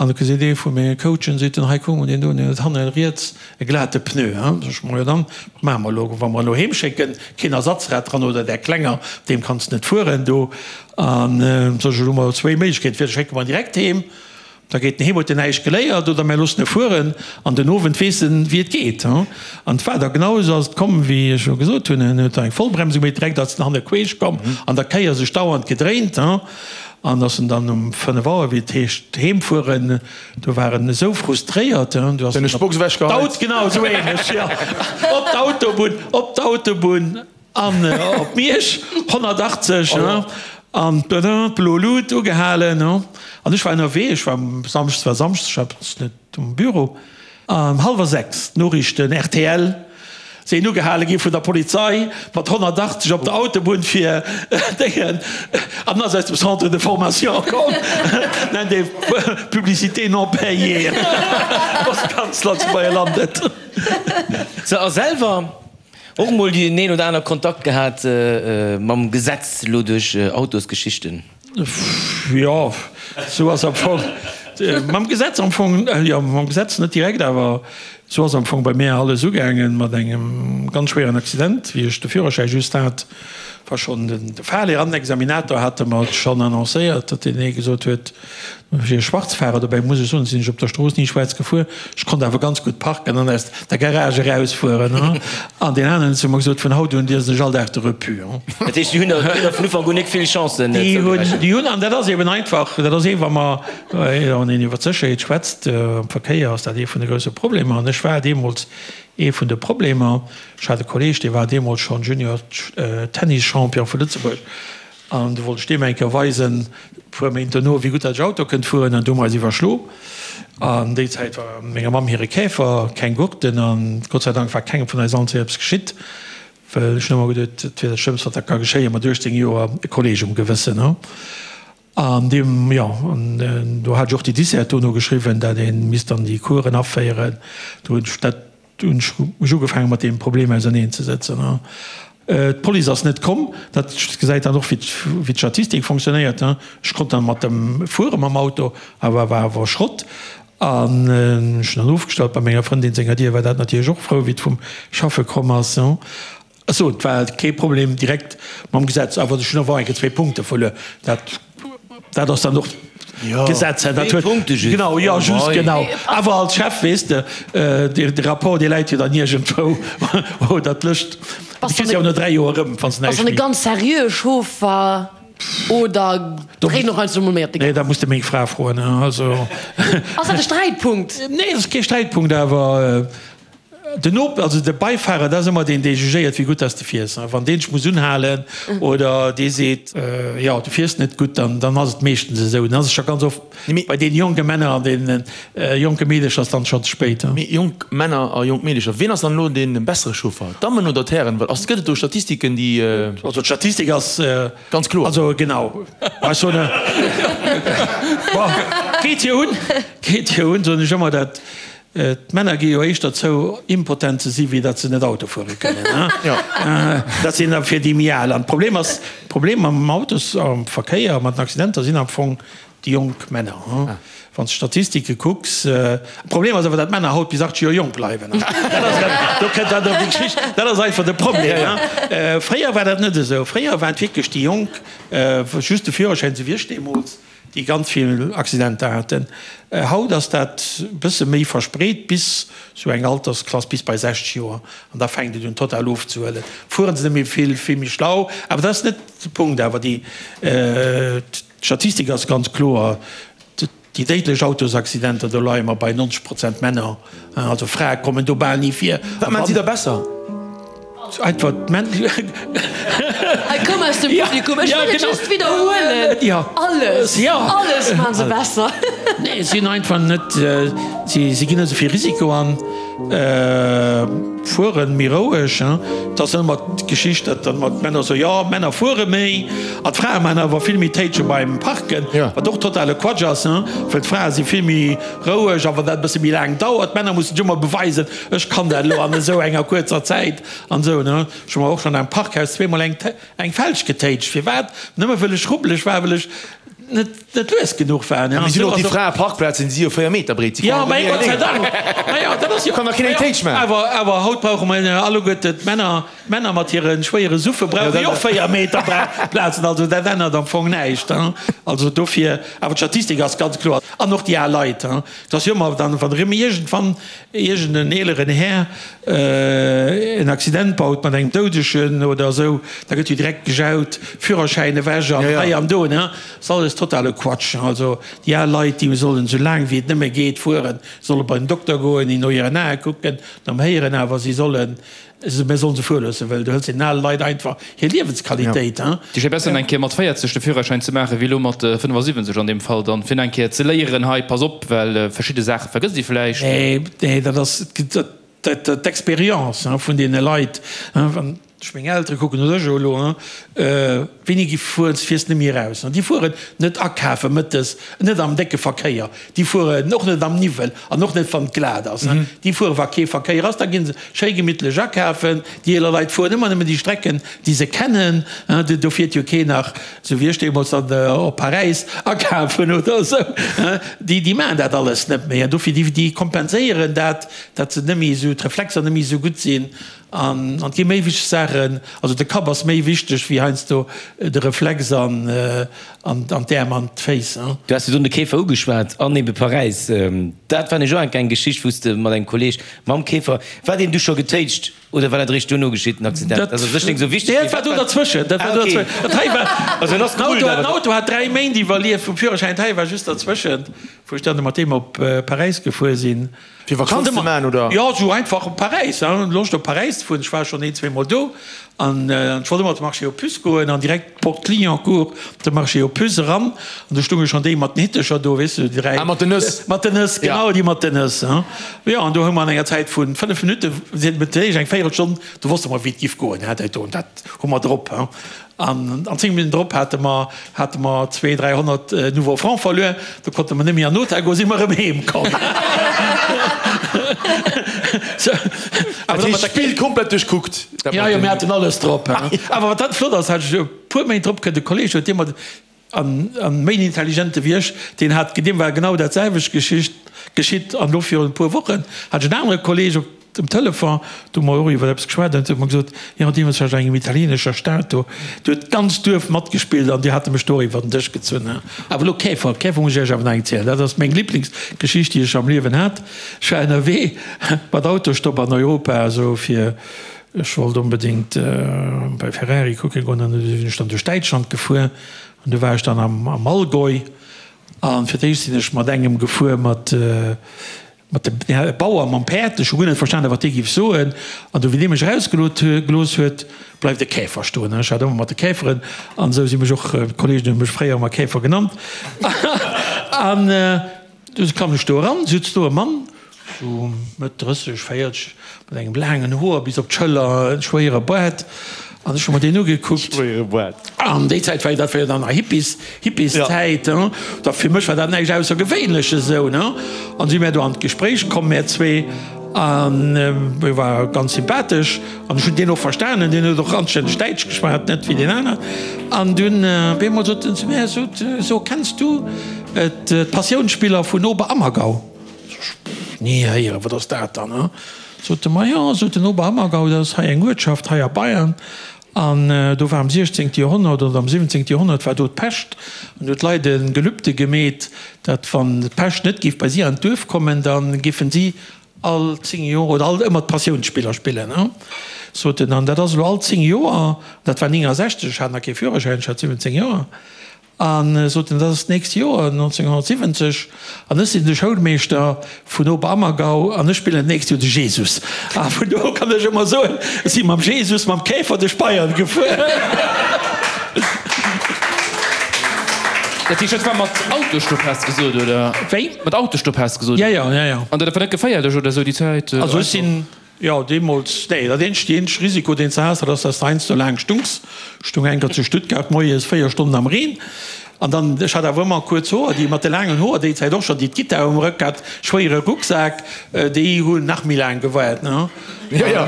An da seet ee vu menge Coachen, seet en, hei kuck mol deen do, deen huet hanne riets e glate Pneu. Sot ech, majo dann, wat maache mer elo, wa mer en elo heem schécken, keen Ersatzrad dran oder där klenger, op deem kanns de net fueren do. An sot ech, elo hu mer zwéi Méiglechkeeten, entweder schécke mer en direkt heem, da geet en heem, huet en näischt geléiert, oder mär loossen e fueren an den Owend weess en, wéi et geet. An et war da genau esou ass et komm, wéi ech elo gesot hunn, en huet da eng Vollbremsung méi direkt ass en hanne queesch komm, an der Kéier sech dauernd gedréint. An ass en dann um 5 Auer, wéi et heescht, heem fueren, do war en esou frustréiert, do ass en op d'Aut, genau esou ähnlech, jo, op d'Autobunn, op d'Autobunn an op Miersch, 180, an d'blo Lut ugehalen. An ech war ënnerwee, ech war samschdes, war samschdes, ech war net um Büro. An hallwer 6, d'Noriichten, rtl. Sinn ugehale gi vun der Polizei mat 180 op der Autobunn fir Déngen an ass aus dem Centre de formation komm. Nennt ee Publicité non payée. Postkanzler zu Beielandet. Sou, a selwer och mol deen een oder aner Kontakt gehat mam Gesetz, lo duerch Autosgeschichten? Jo, sou ass am Fong mam Gesetz am Fong, jo mam Gesetz net direkt, awer sou ass am Fong bei mär alles ugaangen mat engem ganz schwéieren Accident, wéi ech de Führerschäi just hat, war schonn de Fahrlehrer an den Examinator hate mer et schonn annoncéiert, datt deen ee gesot huet, Ech wier Schwarzfahrer, dobäi muss ech soen, sinn ech op der Strooss ni schwaarz gefuer. Ech konnt awer ganz gutt parken an aus der Garage erausfueren. An deen aneren huet zu mer gesot, vun haut un liesen ech all Dag de Repu. Dat heescht, déi hunn der vun Ufank un nik vill Chancen Déi hunn, déi hunn, an dat ass eben einfach, dat ass ee wa mer, wann een iwwer d'Sécherheet schwätzt am Verkéier, ass dat ee vun de grousse Problemer. An ech war deemools ee vun de Problemer. Ech hat e Kolleeg, dee war deemools schonn Junior Tennis-Champion vu Lëtzebuerg. An du wollt ech deem eng Kéier weisen, e puer Méint dono, wéi gutt dat ech Auto kënnt fueren. An du hu mer eis iwwerschlo. An déi Zäit war menger Mamm hire Käfer, keng Gurten. An Gott sei Dank war kengem vun eis allen zwee eppes geschitt. Well ech hunn ëmmer geduet, et wier dat Schlëmmst, wat da ka geschéien, mat 18 Joer e Kolleeg um Gewëssen. An deem, jo, an do hat ech och déi Dissert dono geschriwwen, dat ee misst dann déi Coursen aféieren. Do hunn ech dat Du hunn ech mech ugefaangen mat deem Problem auserneen ze sëtzen. D'Police ass net komm. Dat gesäit dann och wéi d'Statistik fonctionnéiert. Ech konnt dann mat dem fuere mam Auto, awer war awer Schrott. An ech hunn dann ofgestallt bei menger Frëndin senger Dier, war dat natierlech och frou wéi et vum Schaffe komm ass. Ech et war kee Problem direkt mam Gesetz, awer ech hunn awer enke zwee Punkte verluer. Dat, dat ass dann och d'Gesetz, hè. Dat huet, genau, jo, just genau. Awer als Chef, weess de, de Rapport, dee läit jo dann iergendwou, oder d'Lëscht, déi kriss de jo no 3 Joer erëm, wann s de näischt méi. Ass dann e ganz seriöe Chauffer oder dréit en och heiansdo emol méi op de Gas? Nee, dat muss de meng Fra froen, also. Ass dat e Sträitpunkt? Nee, dat ass kee Sträitpunkt, awer. Den Op, also de Beifahrer, dat ass ëmmer deen, dee jugéiert, wéi gutt dass de fiers. Wann deen dech muss unhalen oder dee seet, jo, du fiers net gutt, dann, dann ass et meeschtens esou. Dann ass et scho ganz oft bei deene jonke Männer an deene jonke Meedecher ass dann schonn ze spéit. Mee jonk Männer a jonk Meedecher, wien ass dann elo dee bessere Chauffer, d'Dammen oder d'Hären? Well ass, gëtt et do Statistiken, déi. Also d'Statistik ass. Ganz kloer. Also genau. Ech soen, bon, geet jo un, geet jo un, soen ech ëmmer, dat D'Männer gi jo éischter zou, impotent ze si wéi datt se net Auto fuere kënnen. Dat sinn da fir déi méi al. An d'Problem ass, d'Problem am Autos, am Verkéier, mat den Accidenter sinn am Fong déi jonk Männer. Wann s de d'Statistike kucks. Problem ass awer, datt d'Männer haut bis 80 Joer jonk bleiwen. Dat ass erëm, do kënnt dann erëm déi Geschicht, dat ass einfach de Problem. Fréier war dat net esou. Fréier waren et wierklech déi Jonk, just de Führerschäin, esou wéi ech deemools, déi ganz vill Accidenter haten. Haut ass dat e bësse méi verspreet bis sou eng Altersklass, bis bei 60 Joer, an da fänkt et un total ofzehuelen. Fueren se net méi vill, vill méi schlau, awer dat ass net de Punkt. Awer déi Statistik ass ganz kloer, déi déidlech Autosaccidenter, do leie mer bei 90 Prozent Männer, also Frae kommen do bal ni vir. Wat maachen si da besser? Einfach d'Männ. Hei koum aus dem Publikum, ech wëll et just widderhuelen, alles, alles maachen se besser. Nee, si sinn einfach net, si ginn net esou vill Risiko an, fuere méi roueg. Et ass ëmmer d'Geschicht, datt dann ëmmer d'Männer soen, jo, d'Männer fuere méi an d'Frae maachen awer vill méi Téitsche beim Parken, wat och totale Quatsch ass, well d'Frae si vill méi roueg a wann dat e bësse méi laang dauert, d'Männer mussen sech ëmmer beweisen, Ech kann dat elo an esou enger kuerzer Zäit an esou, ne? Ech hu mer och schonn am Parkhaus zweemol eng eng Felg getéitscht. Firwat? Nëmme wëll ech rubbeleg war, wëll ech net net lues genuch war, ne? An Mee sinn och déi Fraeparkplazen, déi si jo 4 Meter breet, si Jo, mä Gott sei Dank! Ma jo, dat ass jo. Kann der keen eng Téitsch maachen. Awer awer haut brauche mer alleguerte d'Männer, d'Männer mat hire schwéiere Suffe brauche jo och 4 Meter Plazen. Also dat ännert am Fong näischt, hein? Also dofir, awer d'Statistik ass ganz kloer. An och déi al Leit, hein? Et ass jo ëmmer dann, wann erëm iergendwann iergend en eeleren Här en Accident baut mat engem Doudegen oder esou, da gëtt jo direkt gejaut, Führerschäin ewech an hei an do. Dat ass alles totale Quatsch. Also déi al Leit, déi sollen esou laang wéi et nëmme geet fueren, solle bei den Dokter goen, no hiren Ae kucken, nom Héieren, awer si sollen Mir sollen se fuere loossen, well du hëls den ale Leit einfach hir Liewensqualitéit. Et ass jo besser eng Kéier mat 40 de Führerschäin ze maachen, wéi elo mat 75 an deem Fall dann, fir eng Kéier ze léieren, hei pass op, well verschidde Saache vergësst ee vläicht. Nee, nee, dat ass, et. D'Expérience vun deene Leit, wann ech meng Eltere kucken oder ech elo, wéini gi fueren, fiers net méi eraus. Déi fueren net akafe mëttes, net am décke Verkéier, déi fueren och net am Niwwel an och net wann et glat ass. Déi fuere wa kee Verkéier ass, da gi se schéi gemittlech akafen. Déi eeler Leit fueren ëmmer nëmmen déi Strecken, déi se kennen. Do fiert jo keen nach Sou wéi ech deemools dann op Paräis akafen oder esou. Déi, déi maachen dat alles net méi. An dofir, déi, déi kompenséieren dat, datt se net méi esou, d'Reflexer net méi esou gutt sinn. An, an et gi méi wichteg Saachen. Also de Kapp ass méi wichteg wéi heiansdo de Reflex an, an, an d'Äerm an d'Féiss. Du has virdrun de Käfer ugeschwat an ebe Paräis. Dat war nämlech och eng Geschicht, wou s de mat engem Kolleeg mam Käfer, war deen du scho getéitscht? Oder war dat eréischt duerno geschitt, den Accident? Dat ass u sech net esou wichteg. Nee, dat war do derzwëschen. Dat war do derzwëschen. Dat hei war. Also en ass gerullt, awer. Den Auto hat 3 Méint iwwerlieft vum Führerschäin. Dat hei war just derzwëschent, wou ech dann mat deem op Paräis gefuer sinn. Fir Vakanz ze maachen, oder? Jo, esou einfach op Paräis, hein. Loscht op Paräis ze fueren. Ech war schonn een, zweemol do. An ech wollt ëmmer op de Marché aux Puces goen an direkt Porte Clignancourt, de Marché aux Puces eran. An do stounge schonn déi mat den Hittecher do, weess de, déi 3. Ah, mat den Nëss. Mat den Nëss, genau, déi mat den Nëss, hein. Jo, an do hu mer an enger Zäit vu 5 Minutten, si huet eréischt eng Véierelstonn, do wosste mer, wéi et giff goen, hein, dat do, dat hu mer drop, hein. An an 10 Minutten drop hate mer, hate mer zwee, 300 nouveaux francs verluer. Do konnte mer net méi an den Hotel goen, si mer erëm heem komm. Dat heescht, d'Spill komplett duerchkuckt. Jo, jo, mir haten alles drop. Awer wat dann flott ass, hat ech e puer Méint drop kënnt e Kolleeg, huet dee mat, an méi en intelligente wéi ech, deen hat, deem war genau dat selwecht Geschicht geschitt. An elo virun e puer Wochen hat ech en anere Kolleeg op dem Telefon, do hu mer och iwwer eppes geschwat, an huet mer gesot, jo, deemools war ech an engem italienescher Stad, do huet d'ganzt Duerf matgespillt an déi hate mech do och iwwer den Dësch gezunn. Awer elo Käfer, Käfer muss ech Iech awer nach eng zielen, dat ass meng Liblingsgeschicht, déi ech am Liewen hat. Ech war ënnerwee mat Autostopp an Europa, esou fir, ech wollt onbedéngt bei Ferrari kucke goen, an du sinn ech dann duerch Däitschland gefuer an du war ech dann am Allgäu an fir d'éischt sinn ech mat engem gefuer, mat mat dem Bauer mam Päerd, ech hu guer net verstanen, wat dee giff soen, an du wéi dee mech erausgelot gelooss huet, bleift e Käfer stoen. Ech hat ëmmer mat de Käferen an esou si mech och, d'Kollegen hu mech fréier ëmmer Käfer genannt, an du klammen ech do eran, sutz do e Mann, sou Mëtt 30, 40, mat engem laangen Hoer bis op d'Schëller, e schwéiere Baart, an ech hu mer deen ugekuckt. Schwéiere Baart. An déi Zäit war jo, dat war jo dann nach Hippies, Hippieszäit, hein. Da fir mech war dat näischt Aussergewéinleches esou, ne. An si mär do an d'Gespréich komm, mär zwee, an e war ganz sympathesch an ech hunn deen och verstanen, deen huet och anstänneg Däitsch geschwat, net wéi deen aner. An dunn op eemol sot en zu mär, sot, So, kenns du d'Passiounsspiller vun Oberammergau? Ni héieren, wat ass dat dann? Hein? Sot e, Ma jo, sot en, Oberammergau, dat ass hei eng Uertschaft hei a Bayern. An do war am siechzéngte Joerhonnert oder am siwwenzéngte Joerhonnert war do d'Pescht. An do huet d'Leit e Gelübde gemeet, datt wann d'Pescht net géif bei si an d'Duerf kommen, da géifen si all 10 Joer oder all ëmmer d'Passiounsspiller spillen. Hein? Sot en, an dat ass elo all 10 Joer, dat war 69, ech hat nach kee Führerschäin, ech hat 17 Joer. A sot en, dat ass d'nächst Joer, 1970, an ech sinn de Schoulmeeschter vun Oberammergau an ech spillen d'nächst Joer de Jesus. A vun do u kann ech ëmmer soen, ech si mam Jesus, mam Käfer duerch Bayern gefuer. Dat heescht, dat war mat Autostopp, has de gesot, oder? Wéi? Mat Autostopp, has de gesot? Ja, ja, ja, ja. An dat war net geféierlech oder esou déi Zäit? Also ech sinn. Jo, deemools, nee, dat eenzegt, déi eenzeg Risiko, deen s de has, dat ass, dass de heiansdo laang stungs. Ech stung eng Kéier zu Stuttgart moies 4 Stonnen am Reen an dann, ech hat awer ëmmer kuerz Hoer, déi mat de laangen Hoer déi Zäit och schonn, déi d'Gittar um Rëck hat, schwéiere Rucksak, déi hunn nach méi laang gewaart, ne? Jo, jo,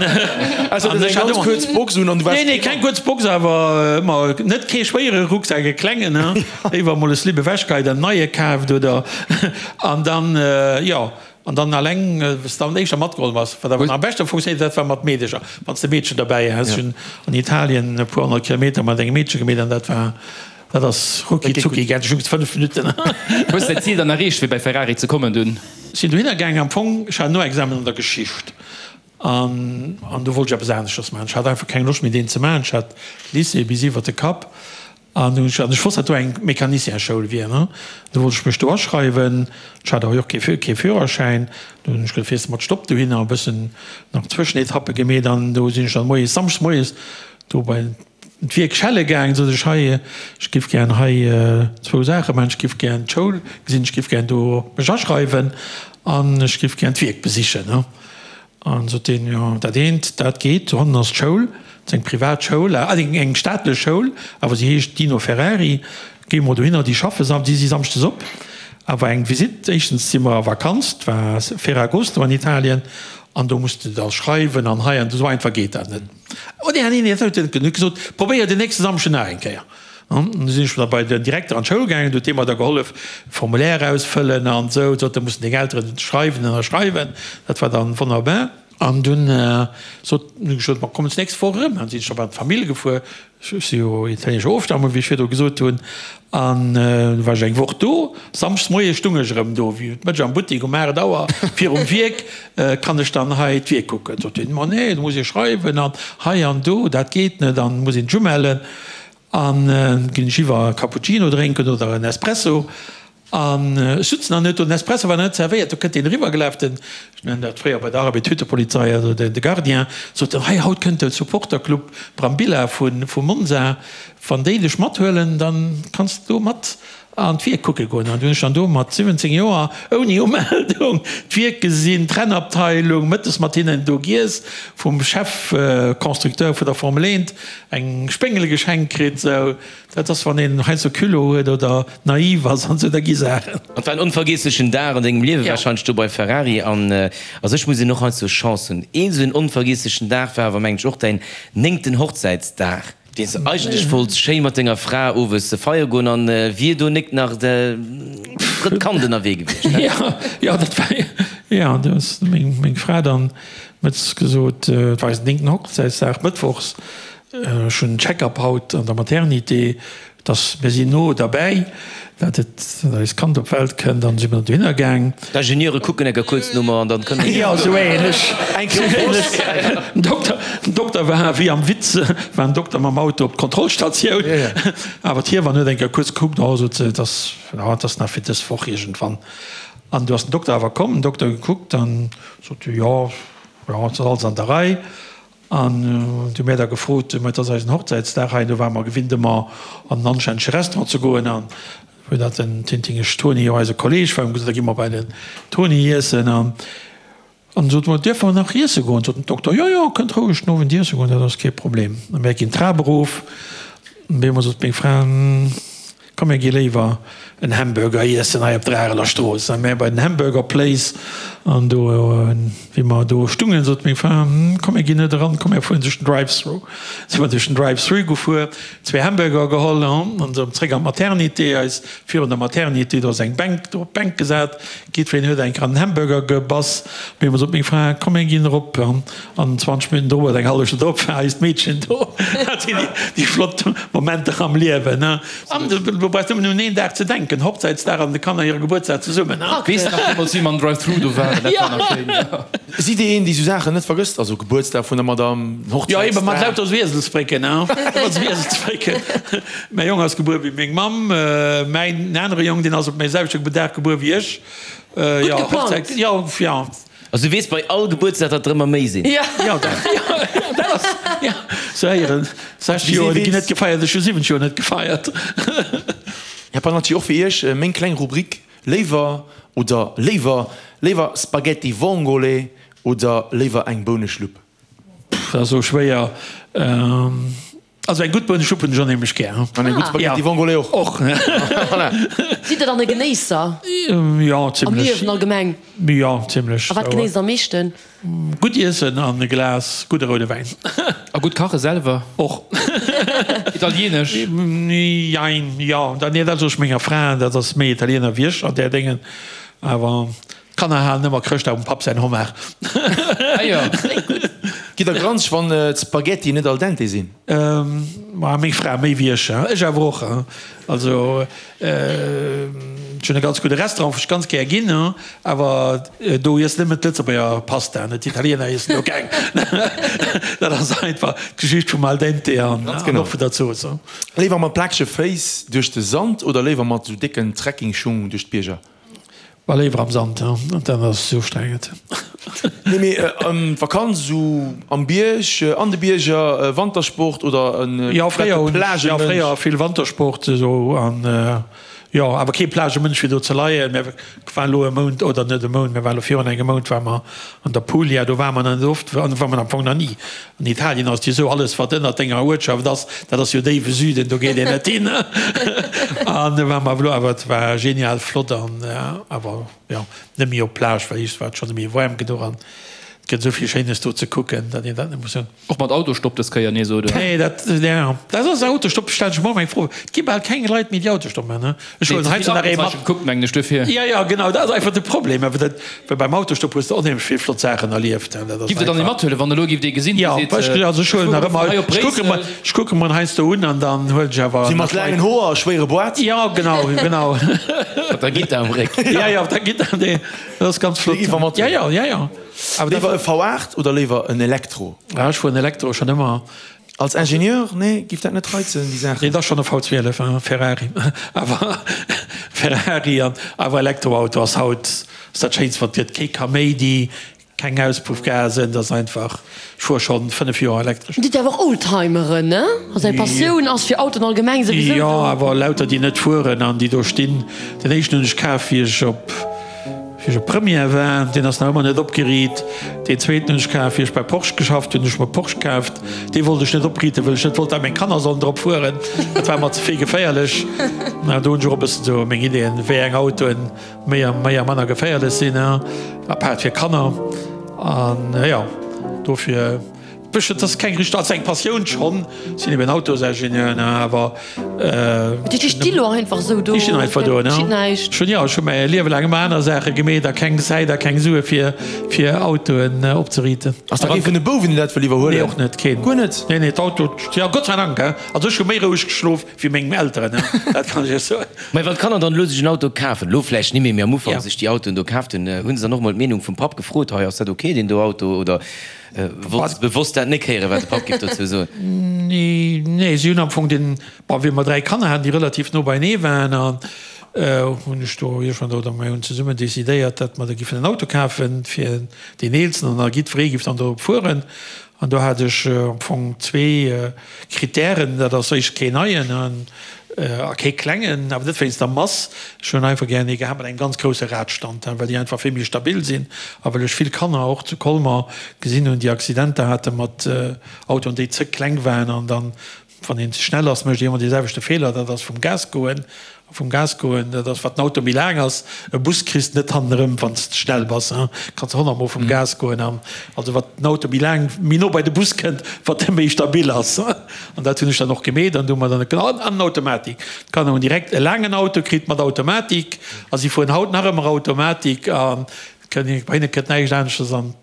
also An eng ech hat ganz ëmmer, kuerz Box un an du waars nee, nee, keng kuerz Box, awer ëmmer net kee schwéiere Rucksak, e klengen, ne? Léiwer emol e Slip ewechgeheit an en neie kaaft oder, an dann, jo. An dann alleng, wou s de dann éischter matgeholl bass. Wat awer nach am beschte funktionéiert, dat war mat Meedecher, wann s de Meedchen derbäi has. Ech hunn an Italien e puer 100 Kilometer mat engem Meedche gemeet an dat war, dat ass rucki zucki gaangen, ech hunn 5 Minutten. Hues de däin Zil dann erreecht, fir bei Ferrari ze kommen dunn? Sinn dohinner gaangen, am Fong, ech hat en Noexamen an der Geschicht an an do wollt ech eppes aneschters maachen. Ech hat einfach keng Loscht méi deen ze maachen. Ech hat Lycée bis iwwert de Kapp An ech wosst, datt do eng Mecanicienschoul wier, ne? Du wollt ech mech do aschreiwen. Ech hat awer jo och kee, kee Führerschäin. Du hunn ech gesot, fiers de mat Stopp dohinner, e bëssen nach Zwëschenetappe gemeet an do sinn ech dann moies, samschdes moies do bei d'Wierk schelle gaangen. Sot ech, hei, ech giff gären hei zwou Saache maachen, ech giff gären d'Schoul gesinn, ech giff gären do mech aschreiwen an ech giff gären d'Wierk besichen, ne? An sot deen, Jo, dat eent, dat geet, dohannen ass d'Schoul, dat ass eng privat Schoul, eng eng staatlech Schoul, awer se heescht Dino Ferrari, géi mol dohinner, déi schaffe sam, déi si samschdes op. Awer eng Visitt, éischtens si mer a Vakanz, 't war Ferragosto an Italien, an do muss de da schreiwen an hei an do, esou einfach geet dat net. Oh nee, nee, nee, dat huet en net gesot, probéier den nächste Samschden nach eng Kéier. An du sinn ech da bei den Direkter an d'Schoul gaangen, du huet dee mer da gehollef Formulaire ausfëllen an esou, sot, da mussen deng Elteren schreiwen, ënnerschreiwen. Dat war dann wonnerbar. An dunn sot, hunn ech gesot, ma kommen d'nächst Woch erëm. An sinn ech da bei d'Famill gefuer, ech si jo italienescher Ofstammung, wéi ech virdru gesot hunn, an du war ech eng Woch do. Samschdes moies stung ech erëm do, wéi d'Mëtsch am Buttek um 8 Auer virum Wierk, Kann ech dann hei d'Wierk kucken? Sot hien, ma nee, do muss ee schreiwen an hei an do, dat geet net an muss een sech umellen. An ginn ech iwwer e Cappuccino drénken oder en Espresso. An ech sutzen an huet do den Espresso war nach net zerwéiert, do kënnt deen eriwwergelaf, den, ech nennen dat fréier bei der Arbed Hüttepolizei, also de Gardien, sot en, hei haut kënnt de Supporterclub Brambilla vu Monza, wann déi dech mathuelen, dann kanns de do mat An d'Wierk kucke goen. An du hunn ech dann do mat 17 Joer ouni Umeldung d'Wierk gesinn, d'Rennabteilung, mëttes mat hinnen do giess, vum Chef-Constructeur vun der Formel 1 eng Spéngel geschenkt kritt. Sou, dat ass wann een heiansdo Culot huet oder naiv ass an sou, da gi Saachen. Et war en onvergiesslechen Dag an dengem Liewe warscheinlech do bei Ferrari. An a sech muss een och heiansdo Chance hunn. Een sou en onvergiesslechen Dag war awer mengen ech och däin néngten Hochzäitsdag. Deen s de eigentlech wollts schéi mat denger Fra owes feiere goen an wier do nik nach de drëtt Kand ënnerwee gewiescht, he? Jo, jo, dat war, jo, do ass meng, meng Fra dann mëttes gesot, et war eisen néngten Hochzäitsdag, mëttwochs, ech hunn Check-up haut an der Maternité, Dass mir sinn no derbäi, dat et dat eist Kand op d'Welt kënnt, an si mir dohinner gaang. D'Ingenieure kucken enker kuerz no mer an dann kënne mir. Jo, esou ähnlech. Esou ähnlech. Den Dokter, den Dokter war wéi am Witz, war den Dokter mam Auto op d'Kontrollstatioun, awer d'Hiewann huet enker kuerz gekuckt, oh, sot se, et ass, jo, et ass nach fir dës Woch iergendwann. An du ass den Dokter awer komm, den Dokter gekuckt an sot, jo, jo, et ass alles an der Rei. An du hu mär da gefrot, ma et ass eisen Hochzäitsdag hei, do ware mer gewinnt ëmmer an en anstännege Restaurant ze goen. An wou dat den Tintingesch Toni jo eise Kolleg war, hu mer gesot, da gi mer bei den Toni iessen. An an sot mer, dierfe mer nach iesse goen? Sot den Dokter, jo, jo, kënnt roueg den Owend iesse goen, dat ass kee Problem. A mär ginn d'Trap erof, an op eemol sot meng Fra, Komm mir gi léiwer en Hamburger iessen hei op der Areler Strooss. A mär bei den Hamburger Place an do wéi mer do stungen, sot meng Fra, Komm mir ginn net eran, komm mir fueren duerch den Drive-Through. Si mer duerch den Drive-Through gefuer, zwee Hamburger geholl an erëm zréck an d'Maternité. Eis virun der Maternité, do ass eng Bänk, do op d'Bänk gesat. Jiddwereen huet eng an den Hamburger gebass. Op eemol sot meng Fra, Komm mir ginn erop. An 20 Minutten drop oder eng hallef Stonn drop war eist Meedchen do. Dat sinn déi flott Momenter am Liewen. An do brauchs nëmmen un een Dag ze denken, Hochzäitsdag an de Kanner hire Gebuertsdag zesummen. Weess nach deemools wéi mer am Drive-Thru do waren, dat war nach schéin. Sidd Dir een, déi sou Saachen net vergësst? Also Gebuertsdag vun der Madame, Hochzäitsdag? Jo, ebe mat lauter sou Ieselsbrécken. Ëmmer sou Ieselsbrécken. Mäi Jong ass gebuer wéi meng Mamm. Mäin anere Jong, deen ass op mäi selwechte Dag gebuer wéi ech. Gutt geplangt. Jo, jo. Also du weess bei all Gebuertsdag, datt der ëmmer méi sinn. Jo, dat, jo, dat ass, jo, sou héieren 60 Joer, déi ginn net gefeiert, ech hu 70 Joer net gefeiert. Här Pannacci, och fir Iech meng kleng Rubrik, Léiwer oder léiwer, léiwer Spaghetti vongole oder léiwer eng Bouneschlupp? Pff, dat ass esou schwéier. Also eng gutt Bouneschlupp hunn ech onheemlech gär. An eng gutt Spaghetti vongole och. Och. Voilà. Sidd Der dann e Genéisser? Jo, zimlech. Am Liewen allgemeng? Jo, zimlech. A wat genéisst Der am meeschten? Gutt iessen an e Glas gudde roude Wäin. A gutt kache selwer? Och. Italienesch? Jein, jo. Nee, dat soe ech menger Fra, dat ass méi Italiener wéi ech an där Déngen. Awer D'Kanner halen ëmmer Chrëschtdag um Papp säin Homard. Ah jo. Gitt der granzeg wann d'Spaghetti net al dente sinn? Ma meng Fra méi wéi ech. Ech awer och. Also ech hunn e ganz gudde Restaurant wou ech ganz gär ginn, awer do iessen nëmmen d'Lëtzebuerger Pasta, net d'Italiener iessen do keng. Dat ass einfach d'Geschicht vum al dente an och vun der Zooss. Léiwer mat plakege Féiss duerch de Sand oder léiwer mat sou décken Trekkingschung duerch d'Bierger? War léiwer am Sand, dat ass esou ustrengend. Nee mee d'Vakanz esou am Bierg, an de Bierger, Wantersport oder en Jo fréier hunn ech, jo fréier vill Wantersport esou an jo awer kee Plagemënsch fir do ze leien. Mir waren elo e Mount, oder net e Mount, mir waren elo virun engem Mount ware mer an der Puglia, do ware mer nach net oft, an do ware mer am Fong nach ni. An Italien ass et jo esou, alles wat ënnert denger Uertschaft ass, dat ass jo déiwe Süden, do geet een net hin. An do ware mer awer elo, awer et war genial flott an awer jo net méi op d'Plage, well iech war et schonn méi waarm genuch an et gëtt esou vill Schéines do ze kucken, datt een dat net muss hunn. Och mat Autostopp dës Kéier nees, oder? Nee, dat, jo, dat ass Autostopp, stellen ech mer och eng Fro. Et gi bal keng Leit méi déi Autostopp maachen, ne? Ech huelen heiansdo nach ee mat. Gekuckt, mengen ech, duerfir. Jo, jo, genau, dat ass einfach de Problem. Awer dat, well beim Autostopp hues de onheemlech vill flott Saachen erlieft. Dat ass Giff der dann ee einfach. mathuelen, wann elo giff dee gesinn, dee Jo, seet, ech, also ech ech huelen fuere nach ëmmer, hei op ech kucke mer, Bréissel. ech kucke mer heiansdo un an dann huelen ech awer Si mat nach Leit. laangen Hoer a schwéiere Boîte. Jo, genau, genau. Mat der Gittar am Réck. Jo, jo, mat der Gittar, nee, dat ass ganz flott. Déi giff mer mathuelen. Jo, jo, jo, jo. Awer dat. Léiwer e V8 oder léiwer en Elektro? Ah, ech fueren Elektro schonn ëmmer. Als Ingenieur, nee, giff dat net reizen, déi Saachen? Nee, et ass schonn e V12, e Ferrari. Awer Ferrari an awer Elektroauto ass haut ass dat Schéinst wat et gëtt. Kee Kaméidi, keng Auspuffgasen, et ass einfach, ech fuere schonn 5 Joer elektresch. Dir sidd awer och Oldtimeren, ne? Also eng Passioun ass fir Autoen allgemeng souwisou Jo, do. awer lauter déi net fueren an déi do stinn. Den éischten hunn ech kaf wéi ech op. Wéi ech op Première war, deen ass nach ëmmer net opgeriit. Deen zweeten hunn ech kaf, wéi ech bei Porsche geschafft hunn, hunn ech mer Porsche kaaft. Dee wollt ech net opriiten, wëll ech net wollt, dat meng Kanner sollen drop fueren. Dat war mer ze vill geféierlech. Mä do hunn ech och e bëssen esou meng Ideeën, wéi eng Autoen méi a méi a manner geféierlech sinn, apaart fir Kanner. An jo, dofir. Bëschen, et ass keng richteg, also eng Passioun schonn, sinn eben Autosingenieur, ne, awer. Déi sti lo einfach esou do. Déi stinn einfach do, ne. Geschitt näischt. Ech hunn, jo, ech hu mäi Liewe laang ëmmer aner Saache gemeet a keng Zäit a keng Sue fir, fir Autoen opzeriiten. Ass da kee vun de Bouwen, deen dat wëll iwwerhuelen? Nee, och net, keen. Guer net? Nee, nee, d'Auto, jo, Gott sei Dank, he. Also ech hu méi roueg geschlof wéi meng Elteren, he, dat kann ech iech soen. Mä wann d'Kanner dann elo sech en Auto kafen, elo vläicht ni méi, mee am Ufank sech déi Autoen do kaaft hunn, hu se dann och mol d'Meenung vum Papp gefrot, hei, ass dat ok, deen do Auto, oder Wolls de bewosst dat nek héieren, wat de Papp giff dozou soen? Nee, nee, si hunn am Fong den, bon, wéi mer 3 Kanner haten, déi relativ no beienee waren, an hunn ech do iergendwann, oder mir hunn zesummen decidéiert, datt mer da giffen en Auto kafen fir deen Eelsten an da jiddweree giff dann dorop fueren. An do hat ech am Fong zwee Kritären, dat ass éischt keen neien an a kee klengen, awer net wéinst der Mass. Ech hunn einfach gären ee gehat mat engem ganz grousse Radstand, well déi einfach vill méi stabil sinn a well ech vill Kanner och zu Colmer gesinn hunn, déi Accidenter hate mat Autoen, déi ze kleng waren an dann, wann een ze schnell ass, mécht ee ëmmer dee selwechte Feeler, dat ass vum Gas goen. Vum Gas goen, dat ass, wat den Auto méi laang ass. E Bus kriss de net hannenerëm, wann s de schnell bass, kanns de honnertmol vum Gas goen. An also wat den Auto méi laang, méi no bei de Bus kënnt, wat e méi stabil ass. An dat hunn ech dann och gemeet an du hu mer dann an en Automatik. D'Kanner hunn direkt e laangen Auto kritt mat Automatik a si fueren haut nach ëmmer Automatik a bei hinne kënnt näischt aneschters an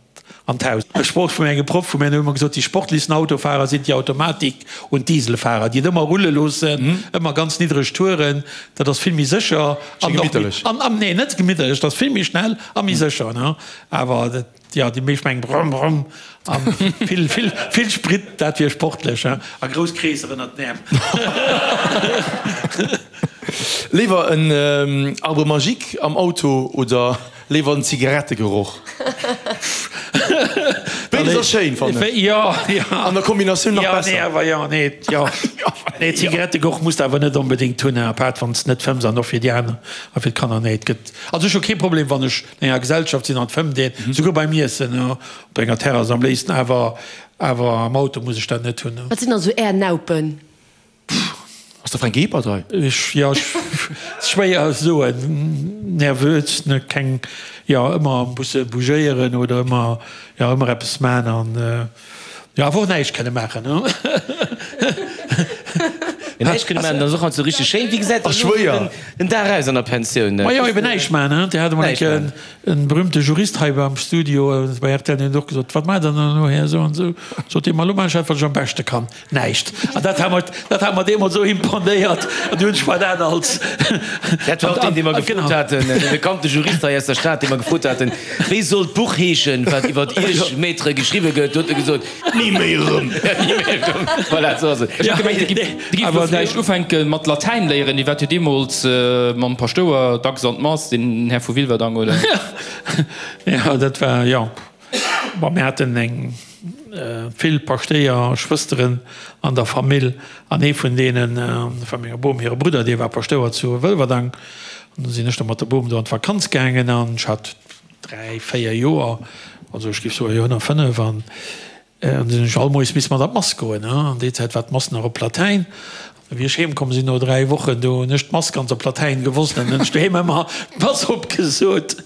An d'Haus. E Sproch vun engem Proff vu mir, deen huet ëmmer gesot, Die sportlichsten Autofahrer sind die Automatik und Dieselfahrer, déi et ëmmer rulle loossen, ëmmer ganz niddreg Touren, dat ass vill méi sécher an och méi, an, an, nee, net gemitterlech, dat ass vill méi schnell a méi sécher, ne? Awer dat, jo, déi meescht mengen brumm, brumm a vill, vill, vill Sprit, dat wier sportlech, he? A grouss Kreesser ënnert den Äerm. Léiwer en Arbre magique am Auto oder Léiwer en Zigarettegeroch. Béides ass schéin, fannen ech. Jo, jo. An der Kombinatioun nach besser. Jo, nee, awer jo, nee, jo. Nee, Zigarettegeroch muss de awer net onbedéngt hunn, apaart wann s de net fëmms an och fir déi aner a fir d'Kanner. Nee, et gëtt, also ech hu kee Problem, wann ech an enger Gesellschaft sinn an et fëmmt een, souguer beim Iessen, op enger Terrass am léifsten, awer, awer am Auto muss ech dat net hunn. Wat sinn dann esou Är Naupen? Ass de Fränk Ebert hei? Ech, jo, ech, schwéier soen, nervös, ne, keng, jo, ëmmer musse bougéieren oder ëmmer, jo, ëmmer eppes man an, jo, awer och näischt kënne maachen, ne. Näischt kënne maachen, dat ass och alt sou richteg schéin. Wéi gesäit dann elo den Dag aus an der Pensioun? Ma jo, eben näischt man, ne. Dir hat emol eng Kéier en berühmte Jurist hei beim Studio bei rtl, deen huet och gesot, Wat maacht Der dann elo, Här esou an esou? Sot dee, Ma elo maachen ech dat, wat ech am beschte kann. Näischt. An dat hat mer, dat hat mer deemools esou imponéiert. An du hunn ech mer dat als. Dat war och deen, dee mer gefrot haten, dee bekannte Jurist hei aus der Stad, dee mer gefrot haten, Wéi soll d'Buch heeschen, wat iwwer Iech, Maître, geschriwwe gëtt? Do huet e gesot. Ni méi erëm. Ni méi erëm. Voilà, esou ass et. Ech hat gemengt, de giff elo. Vläicht ufänke mat Latäin léieren, Dir waart jo deemools mam Paschtouer dacks an d'Mass, den Här vu Wilwerdang, oder? Jo, dat war, jo. Bon, mir haten eng vill Paschtéier Schwësteren an der Famill an ee vun deenen, dat war menger Bom hire Brudder, dee war Paschtouer zu Wëlwerdang. An du sinn ech da mat der Bom do an d'Vakanz gaangen an ech hat 3, 4 Joer, also ech géif soen, jo, 105 an An sinn ech all Moies misse mat an d'Mass goen. An déi Zäit war d'Mass nach op Latäin. A wéi ech heem komm sinn no 3 Wochen, do hunn ech d'Mass ganz op Latäin gewosst an hunn ech doheem ëmmer d'Mass opgesot.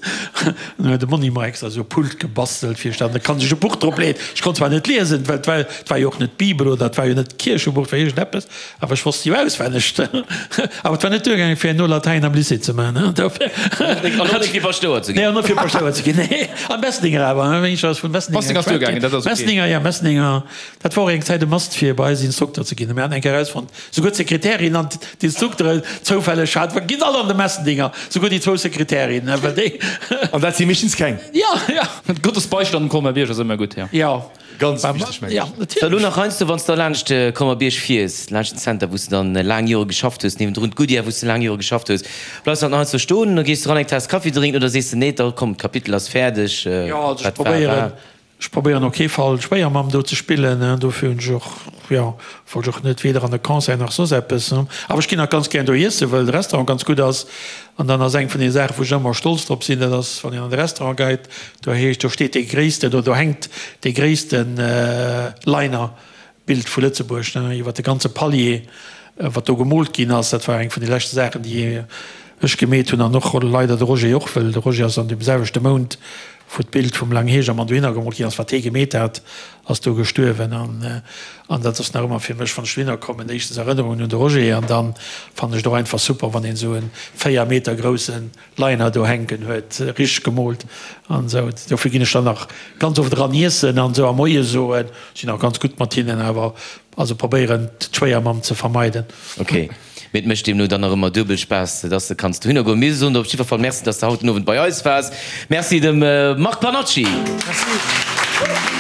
An dann huet de Monni mer extra esou e Pult gebastelt, fir ech dann, da kann sech e Buch drop leeën. Ech konnt zwar net liesen, well et war, et war jo och net d'Bibel oder et war jo net d'Kierchebuch, et war iergendeppes. Awer ech wosst jo auswenneg. Awer et war net duergaangen, fir herno Latäin am Lycée ze maachen. Dofir. An och net fir Paschtouer ze ginn. Nee, an net fir Paschtouer ze ginn, nee. Am Mesninger awer, wéi ech ass vun Mesninger. Mesninger ass duergaangen, dat ass ok. Mesninger, ja, Mesninger. Dat war och eng Zäit e Must, fir bei eis Instrukter ze ginn. Mir haten eng Kéier erausfonnt, souguer d'Sekretärin an d'Instrukteren zoufälleg hat, ginn all an de Messendinger, souguer déi zwou Sekretärinnen, well déi. An dat si meeschtens keng. Ja, ja. Gottes Beistand um Colmer-Bierg ass ëmmer gutt, ja. Ja. Ganz wichteg, mengen ech. So, elo nach heiansdo, wann s de laanscht de Colmer-Bierg fiers, laanscht den Center, wou s de dann laang Jore geschafft hues, niewendrun d'Goodyear, wou s de laang Jore geschafft hues, bleifs de dann nach heiansdo stoen oder gees de ran eng Taass Kaffi drénken oder sees de, nee, da komm, d'Kapitel ass fäerdeg, Jo, also ech wat war, probéieren, war. ech probéieren op kee Fall d'Schwéiermamm do ze spillen, dofir hunn ech och, jo, wollt ech och net weder an e Concert nach soss eppes. Awer ech ginn nach ganz gären do iessen, well de Restaurant ganz gutt ass. An dann ass eng vun den Saachen, wou ech ëmmer stolz drop sinn, dat ass, wann een an de Restaurant geit, do heescht, do steet dee gréissten, oder do hänkt dee gréissten Liner-Bild vu Lëtzebuerg, ne, iwwer de ganze Palier, wat do gemoolt ginn ass. Dat war eng vun de leschte Saachen, déi ech gemeet hunn an och leider de Roger och, well de Roger ass an deem selwechte Mount, wou d'Bild vum Lang Hegermann dohinner gemoolt ginn ass, wat hee gemeet hat, ass do gestuerwen an an dat ass nach ëmmer fir mech, wann ech dohinner kommen, éischtens Erënnerungen un de Roger an dann fannen ech et och einfach super, wann een esou en 4 Meter groussen Liner do hänken huet, richteg gemoolt an esou. Dofir ginn ech dann nach ganz oft eran iessen an esou a Moie soen, sinn och ganz gutt mat hinnen, awer also probéieren d'Schwéiermamm ze vermeiden. Ok, mee et mécht deemno dann nach ëmmer duebel Spaass, dass de kanns dohinner goen. Mir soen der op jiddwer Fall Merci, dass de haut den Owend bei eis waars. Merci dem Marc Pannacci. Merci.